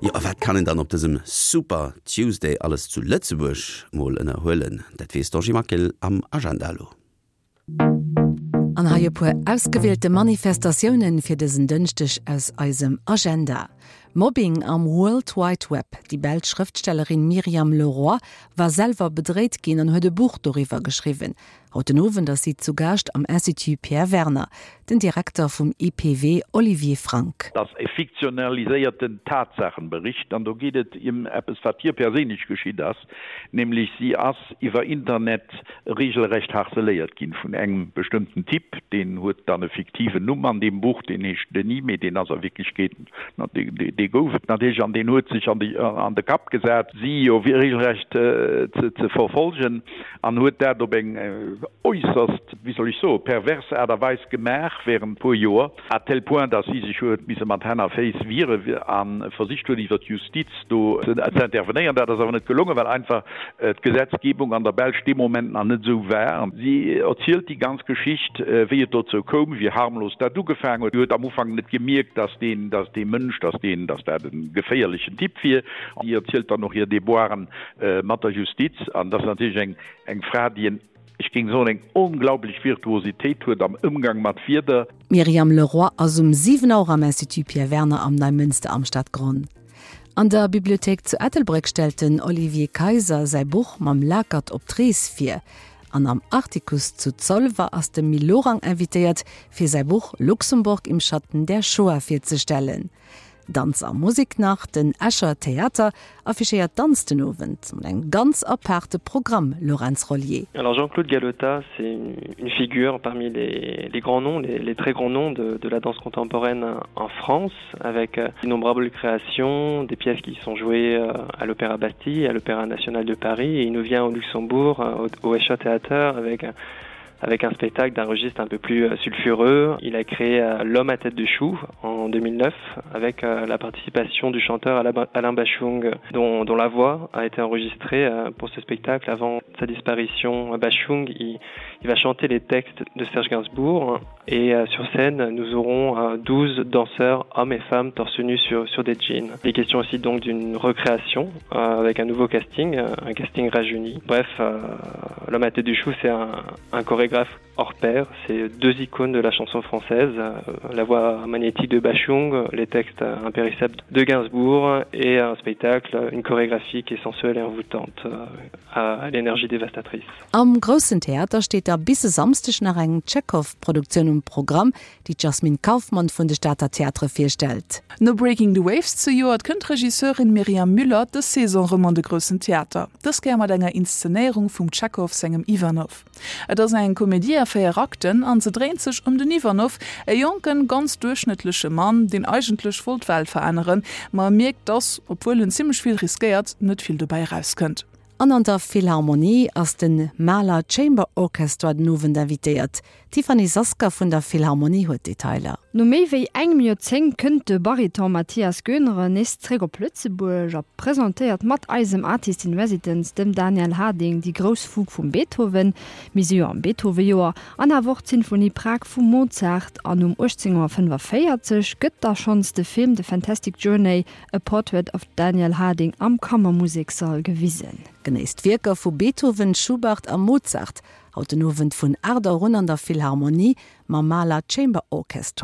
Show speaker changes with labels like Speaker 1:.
Speaker 1: Jo, a wat kann een dann op dësem Super Tuesday alles zu Lëtzebuerg mol ënnerhuelen? Dat weess d'Angie Maquil am Agenda elo.
Speaker 2: An hei e puer ausgewielte Manifestatiounen fir dësen Dënschdeg aus eisem Agenda. Mobbing am World Wide Web, Déi belsch Schrëftstellerin Myriam Leroy war selwer bedréit ginn an huet e Buch doriwwer geschriwwen. Haut den Owend ass si zu Gaascht am Institut Pierre Werner. Den Direkter vum IPW Olivier Frank.
Speaker 3: Et ass e fiktionaliséierten Tatsaachenbericht an do geet et ëm eppes, wat hir perséinlech geschitt ass, nämlech si ass iwwer Internet regelrecht harceléiert ginn vun engem bestëmmten Typ, deen huet dann e fiktiven Numm an deem Buch, deen heescht Denis, mee deen ass a Wierklechkeet, dee gouf et natierlech an deen huet sech an de Kapp gesat, si jo regelrecht ze verfolgen. An huet dat op eng äusserst, wéi soll ech soen, pervers Aart a Weis gemaach während puer Joer, à tel point, dass si sech huet misse mat Hänn a Féiss wiere a versicht huet iwwer d'Justiz do ze intervenéieren. Dat ass awer net gelongen, well einfach d'Gesetzgebung an der Belsch dee Moment nach net esou war. Si erzielt déi ganz Geschicht, wéi et dozou koum, wéi harmlos dat ugefaangen huet. Si huet am Ufank net gemierkt, dass deen, dass dee Mënsch, dass deen, dass dat e geféierlechen Typ wier. Si erzielt dann och hir Déboiren mat der Justiz, an dat ass natierlech eng eng Fra, déi en, ech géing soen, eng onglaublech Virtuositéit huet am Ëmgang mat Wierder.
Speaker 2: D'Myriam Leroy ass um 7 Auer am Institut Pierre Werner am Neimënster am Stadgronn. An der Bibliothéik zu Ettelbréck stellt den Olivier Kayser säi Buch Mam Lakert op d'Rees vir. An am Artikuss zu Zolwer ass de Mil Lorang invitéiert, fir säi Buch Luxemburg im Schatten der Shoah virzestellen. Danz a Musik nach, Den Escher Theater affichéiert Danz den Owend mat engem ganz aparte Programm, Laurence Rollier.
Speaker 4: Alors Jean-Claude Galota, c'est une figure parmi les, les grands noms, les, les très grands noms de, de la danse contemporaine en France, avec euh, d'innombrables créations, des pièces qui sont jouées euh, à l'Opéra Bastille, à l'Opéra National de Paris, et il nous vient au Luxembourg, euh, au, au Escher Theater, avec un avec un spectacle d'un registre un peu plus euh, sulfureux. Il a créé euh, L'homme à tête de chou en 2009 avec euh, la participation du chanteur Alain Bachung dont, dont la voix a été enregistrée pour ce spectacle avant sa disparition. Bachung il, il va chanter les textes de Serge Gainsbourg et sur scène nous aurons 12 danseurs hommes et femmes torse nus sur, sur des jeans. Les questions aussi donc d'une recréation avec un nouveau casting, un casting rajeuni. Bref, l'homme à tête du chou c'est un, un chorégraphe hors pair, c'est deux icônes de la chanson française, euh, la voix magnétique de Bachung, les textes impérissables de Gainsbourg et un spectacle, une chorégraphie qui est sensuelle et envoûtante euh, à l'énergie dévastatrice.
Speaker 2: Am Groussen Theater steet da bis e Samsdeg nach eng Tschekhov-Produktioun um Programm, déi d'Jasmine Kauffmann vun de Stater Theatere virstellt.
Speaker 5: No Breaking the Waves zejoert kënnt d'Regisseurin Myriam Müller dës Saison rëm an de Groussen Theater, dës Kéier mat enger Inszenéierung vum Tschekhov sengem Ivanov. Et ass eng Komedie a 4 Akten an se dréint sech ëm den Ivanov, e jonken, ganz duerchschnëttleche Mann, deen eigentlech wollt d'Welt veränneren, ma e mierkt, dass, obwuel en zimmlech vill riskéiert, net vill dobäi erauskënnt.
Speaker 2: An an der Philharmonie ass de Mahler Chamber Orchestra den Owend invitéiert. D'Tiffany Sasker vun der Philharmonie huet d'Detailer.
Speaker 6: No méi wéi engem Joerzéngt kënnt de Bariton Matthias Goenere nees zréck op Lëtzebuerg a presentéiert mat eisem Artist in Residence, dem Daniel Harding, déi grouss Fugue vum Beethoven, mir si jo am Beethoven-Joer, an awer och d'Sinfonie Prag vum Mozart. An um 18.45 Auer gëtt da schonns de Film The Fantastic Journey A Portrait of Daniel Harding am Kammermusekssall gewisen.
Speaker 2: Genéisst d'Wierker vu Beethoven, Schubert a Mozart haut den Owend vun 8 Auer un an der Philharmonie mam Mahler Chamber Orchestra.